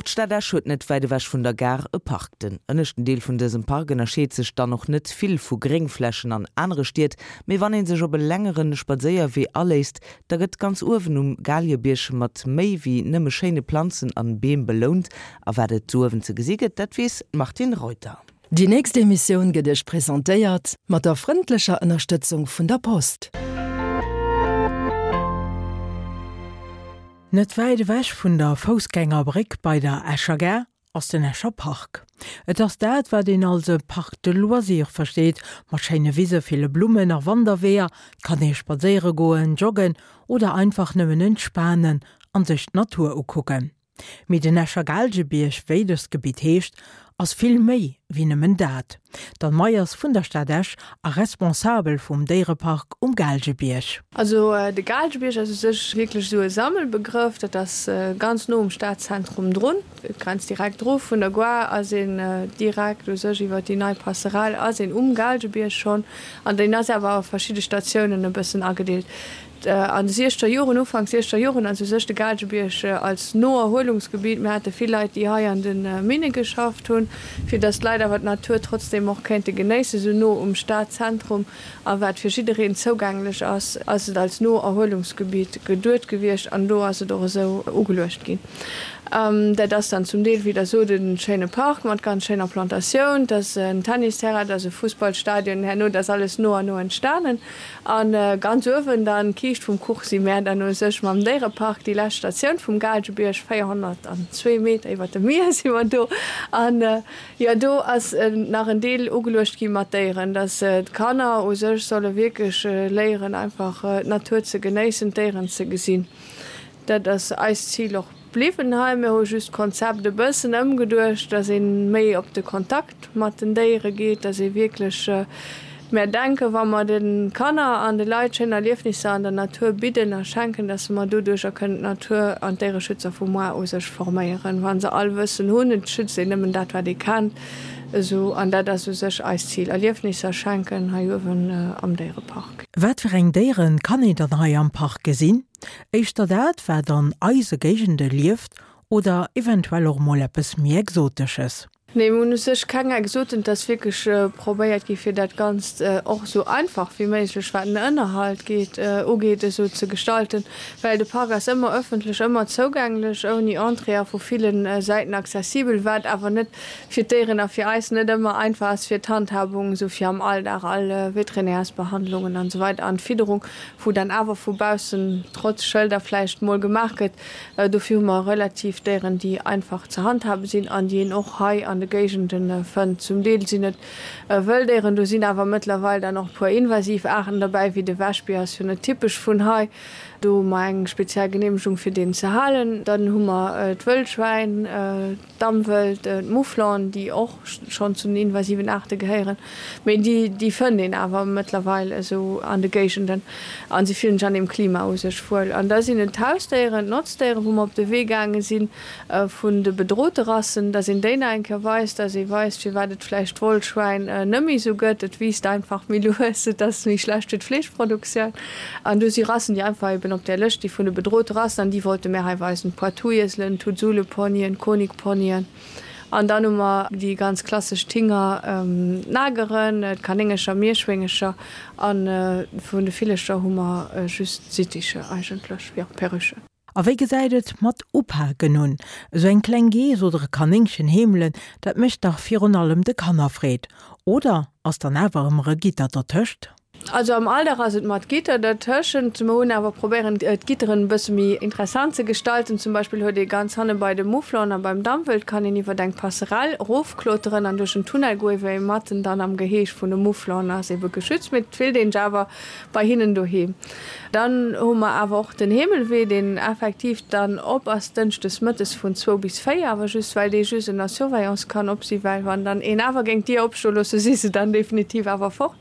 Och d'Stad Esch huet net wäit ewech vun der Gare e Park. Den ënneschten Deel vun dësem Park ënnerscheet sech dann och net vill vu Gréngflächen an anere Stied, mee wann ee sech op e längere Spadséierwee aléisst, da gëtt ganz uewen um Galiebierg mat méi wéi nëmme schéine Planzen an Beem belount. A wat et do uewen ze gesi gëtt, dat weess d'Martine Reuter. Déi nächst Emissioun gëtt Iech presentéiert mat der frëndlecher Ënnerstëtzung vun der Post. Net wäit ewech vun der Foussgängerbréck bei der Escher Gare ass den Escher Park. Et ass dat, wat een als e Parc de loisirs versteet, mat schéine Wise, ville Blummen a Wanderweeër. Et kann ee spadséiere goen, joggen oder einfach nëmmen entspanen an sech d'Natur ukucken. Mee den Escher Gaalgebierg, wéi dëst Gebitt heescht, ass vill méi wéi nëmmen dat. D'Anne Meyers vun der Stad Esch a Responsabel vum Déierepark um Gaalgebierg. Also de Gaalgebierg ass u sech wierklech esou e Sammelbegrëff. Dat ass ganz no um Stadzentrum drun. Et grenzt direkt dru. Vun der Gare ass een direkt u sech iwwer déi nei Passerelle ass een um Gaalgebierg schonn. An deen ass awer a verschidde Statiounen e bëssen agedeelt. An de siechzeger Joren, Ufank siechzeger Joren ass u sech de Gaalgebierg als Noerhuelungsgebiet, mir hate vill Leit, déi hei an de Minne geschafft hunn, fir datt d'Leit awer d'Natur trotzdeem och kéinte genéissen, esou no um Stadzentrum a wat fir jiddereen zougänglech ass, ass et als Noerhuelungsgebiet geduet gewiescht an do ass et och esou ugeluecht ginn. Dat ass dann zum Deel, wéi Der sot, e schéine Park mat ganz schéiner Plantatioun, et ass en Tennisterrain, et ass e Fussballstadion, herno, dat ass alles no an no entstanen. A ganz uewen dann, d'Kiischt vum Kuch, si mär dann u sech mam Déierepark, déi lescht Statioun vum Gaalgebierg, 402 Meter iwwer dem Mier si mer do. An jo, do ass nach en Deel ugeluecht gi mat Déieren, dass d'Kanner u sech solle wierklech léieren, einfach d'Natur ze genéissen, d'Déieren ze gesinn. Dat ass eist Zil och bliwwen hei. Mir hu just d'Konzept e bëssen ëmgeduecht, dass ee méi op de Kontakt mat den Déiere geet, dass ee wierklech, mär denken, wa mer de Kanner an de Leit schéin Erliefnisser an der Natur bidden a schenken, dass mer doduercher kënnen d'Natur an d'Déiereschützer vu moar u sech forméieren, wa se all Wëssen hunn. Et schützt een nëmmen dat, wat ee kennt. Esou, an dat ass u sech eist Zil, Erliefnisser schenken hei uewen am Déierepark. Wat fir eng Déiere kann een dann hei am Park gesinn? Éischter dat, wat an eise Géigende lieft, oder eventuell och mol eppes méi Exotesches? Nee, mir hunn u sech keng Exoten. Et ass wierklech probéiert gi fir dat Ganzt och esou einfach wéi méiglech, wat den Ënnerhalt geet, ugeet, esou ze gestalten, well de Park ass ëmmer ëffentlech, ëmmer zougänglech, ouni Entrée a vu ville Säiten accessibel, wat awer net fir d'Déieren a fir eis net ëmmer einfach ass fir d'Handhabung, esou fir am Alldag all Veterinärsbehandlungen an esou weider an d'Fidderung. wou dann awer vu baussen trotz Schëlder vläicht mol gemaach gëtt. Dofir hu mer relativ Déieren, déi einfach ze handhabe sinn an déi een och hei an de Géigende fënnt. Zum Deel sinn et Wëlldéieren, do sinn awer mëttlerweil dann och e puer invasiv Aarten derbäi, wéi de Wäschbier ass jo net typesch vun hei. Do hu mer eng speziell Geneemegung fir deen ze halen. Dann hu mer d'Wëllschwäin. D'Dammwëld, d'Mouflon, déi och schonn zu den invasiven Aarte gehéieren, mee déi, déi fënnt een awer mëttlerweil esou an de Géigenden a si fillen sech an deem Klima u sech wuel. An da sinn et d'Hausdéieren, d'Notzdéieren, wou mer op de Wee gaange si vun de bedrote Rassen, dass een déi nach eng Kéier weist, dass ee weist, firwat et vläicht d'Wollschwäin net méi esou gëtt, et wiisst einfach méi lues, et ass méi schlecht fir d'Fleeschproduktioun. An do si Rassen, déi einfach eben op där Lëscht sti vun de bedrote Rassen, an déi wollte mär hei weisen, d'Poitouieselen, d'Huzuleponyen, d'Konikponyen. An dann hu mer déi ganz klassesch Tinger, d'Nageren, d'Kanéngercher, Mierschwéngercher, a vun de Villercher hu mer just d'Sitticher eigentlech, jo, Perruchen. A wéi gesäit et mat upaken un? Esou eng kleng Geess oder e Kanéngchen heemelen, dat mécht dach virun allem de Kanner Freed. Oder ass dann awer ëmmer e Gitter dertëscht? Also am Alldag ass et mat Gitter dertëschent. Mer hunn awer probéieren d'Gitteren e bësse méi interessant ze gestalten. Zum Beispill huet ee ganz hanne bei de Mouflon a beim Dammwëld kann een iwwert eng Passerelle erofkloteren an duerch en Tunnel goen, wéi ee matten dann am Geheeg vun de Mouflon ass, ebe geschützt. Mee et fillt een sech awer bei hinnen doheem. Dann hu mer awer och den Heemelwee, deen effektiv dann op ass dënschdes mëttes vun zwou bis véier, awer just well dee just ënner Surveillance kann op si well wann dann een awer géing d'Dier opstoe loosse, si se dann definitiv awer fort.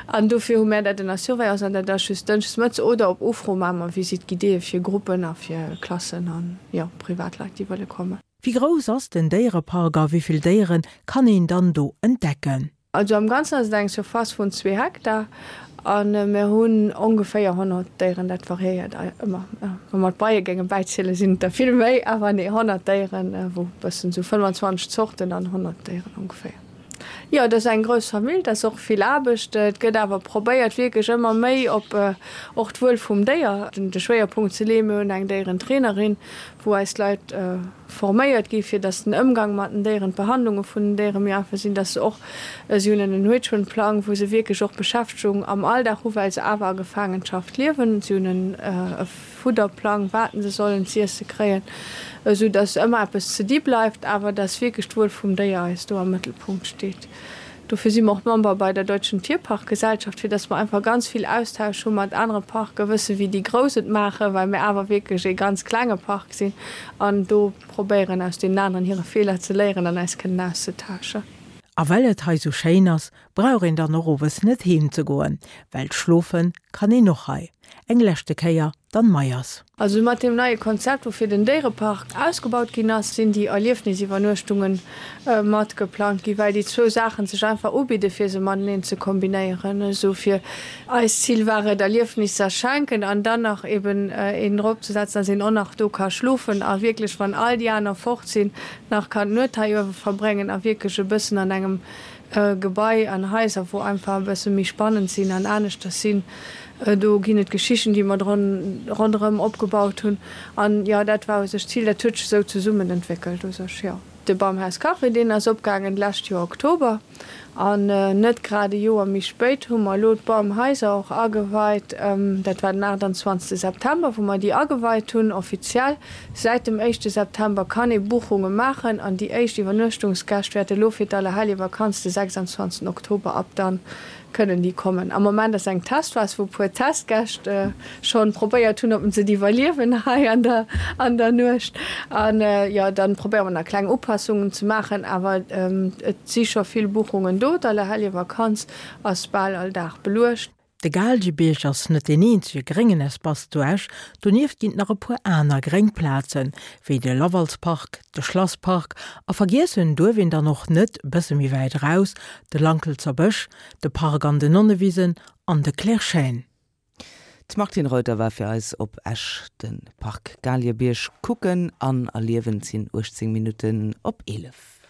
An dofir hu mär dat ënner Surveillance an dat ass just dënschdes mëttes oder op Ufro maache mer Visite guidéeë fir Gruppen a fir Klassen an, jo, Privatleit, déi wëlle kommen. Wéi grouss ass den Déierepark a wéi vill Déiere kann een dann do entdecken? Also am Ganzen ass et eng Surface vun zwee Hektar. A mir hunn ongeféier 100 Déieren, dat variéiert ëmmer. Wa mer d'Beie géinge bäizielen, sinn et der vill méi, awer nee, 100 Déieren, wou e bëssen esou 25 Zorten an 100 Déieren ongeféier. Jo, et ass eng grouss Famill, et ass och vill Aarbecht. Et gëtt awer probéiert, wierklech ëmmer méi op och d'Wuel vum Déier de Schwéierpunkt ze leeën. Mir hunn eng Déierentrainerin, wou eis Leit forméiert gi fir dass den Ëmgang mat den Déieren, d'Behandlunge vun den Déiere méi einfach sinn, dass se och, si hunn en Enrichment-Plang, wou se wierklech och Beschäftegung am Alldag hu well se awer a Gefaangenschaft liewen. Si hunn e Fudderplang, wat se sollen z'iesse kréien, esou dass ëmmer eppes ze di bleift, awer dass wierklech d'Wuel vum Déier eis do am Mëttelpunkt steet. Dofir si mer och Member bei der Deutschen Tierparkgesellschaft, fir dass mer einfach ganz vill Austausch hu mat anere Parken, wësse wéi déi Grouss et maachen, well mir awer wierklech ee ganz klenge Park sinn an do probéieren aus deenen aneren hire Feeler ze léieren an eis kënnen auszetauschen. A well et hei sou schéin ass, brauch een dann och owes net heem ze goen, well schlofe kann een och hei. Eng leschte Kéier d'Anne Meyers. Also mat deem neie Konzept, woufir den Déierepark ausgebaut ginn ass, sinn déi Erliefnisiwwernuechtunge mat geplangt ginn, well déi zwou Saachen sech einfach ubidde fir se mateneen ze kombinéieren. Esou fir eist Zil war et, Erliefnisser schenken an dann nach eben een drop ze setzen, dass een och nach do ka schlofen a wierklech, wann all déi aner fort sinn, nach kann d'Nuet hei uewe verbréngen a wierklech e bëssen an engem Gebai an Haiser, wou einfach e bësse méi spannend sinn an aneschters sinn. Do ginn et Geschichten, déi mer ronderëm opgebaut hunn. An jo, dat war u sech d'Zil. Dat huet sech esou zesummen entwéckelt u sech, jo. De Bamhaus Café, deen ass opgaangen d'lescht Joer Oktober. An net grad e Joer méi spéit hu mer elo d'Bamhaiser och ageweit. Dat war den 28 September, wou mer déi ageweit hunn, offiziell. Säit dem éischte September kann ee Buchunge maachen an déi éischt Iwwernuechtungsgäscht wäerte lo fir d'Allerheljevakanz de 26 Oktober ab dann kënnen déi kommen. Am Moment ass eng Testphas, wou e puer Testgäscht schonn probéiert hunn, ob se et iwwerliewen hei an der an der Nuecht. An jo, dann probéiere mer nach kleng Upassungen ze maachen, awer et si scho vill Buchungen do. D'Allerheljevakanz ass bal all Dag beluecht. De Gaalgebierg ass net deen eenzege gréngen Espace zu Esch, donieft ginn et nach e puer aner gréng Plazen, wéi de Lavalspark, de Schlasspark a vergiessen duerf een dann och net, bësse méi wäit eraus, de Lankelzer Bësch, de Park an den Nonnewisen an de Clair-Chêne. D'Martine Reuter war fir eis op Esch de Park Gaalgebierg kucken an erliewen. Et sinn 18 Minutten op 11.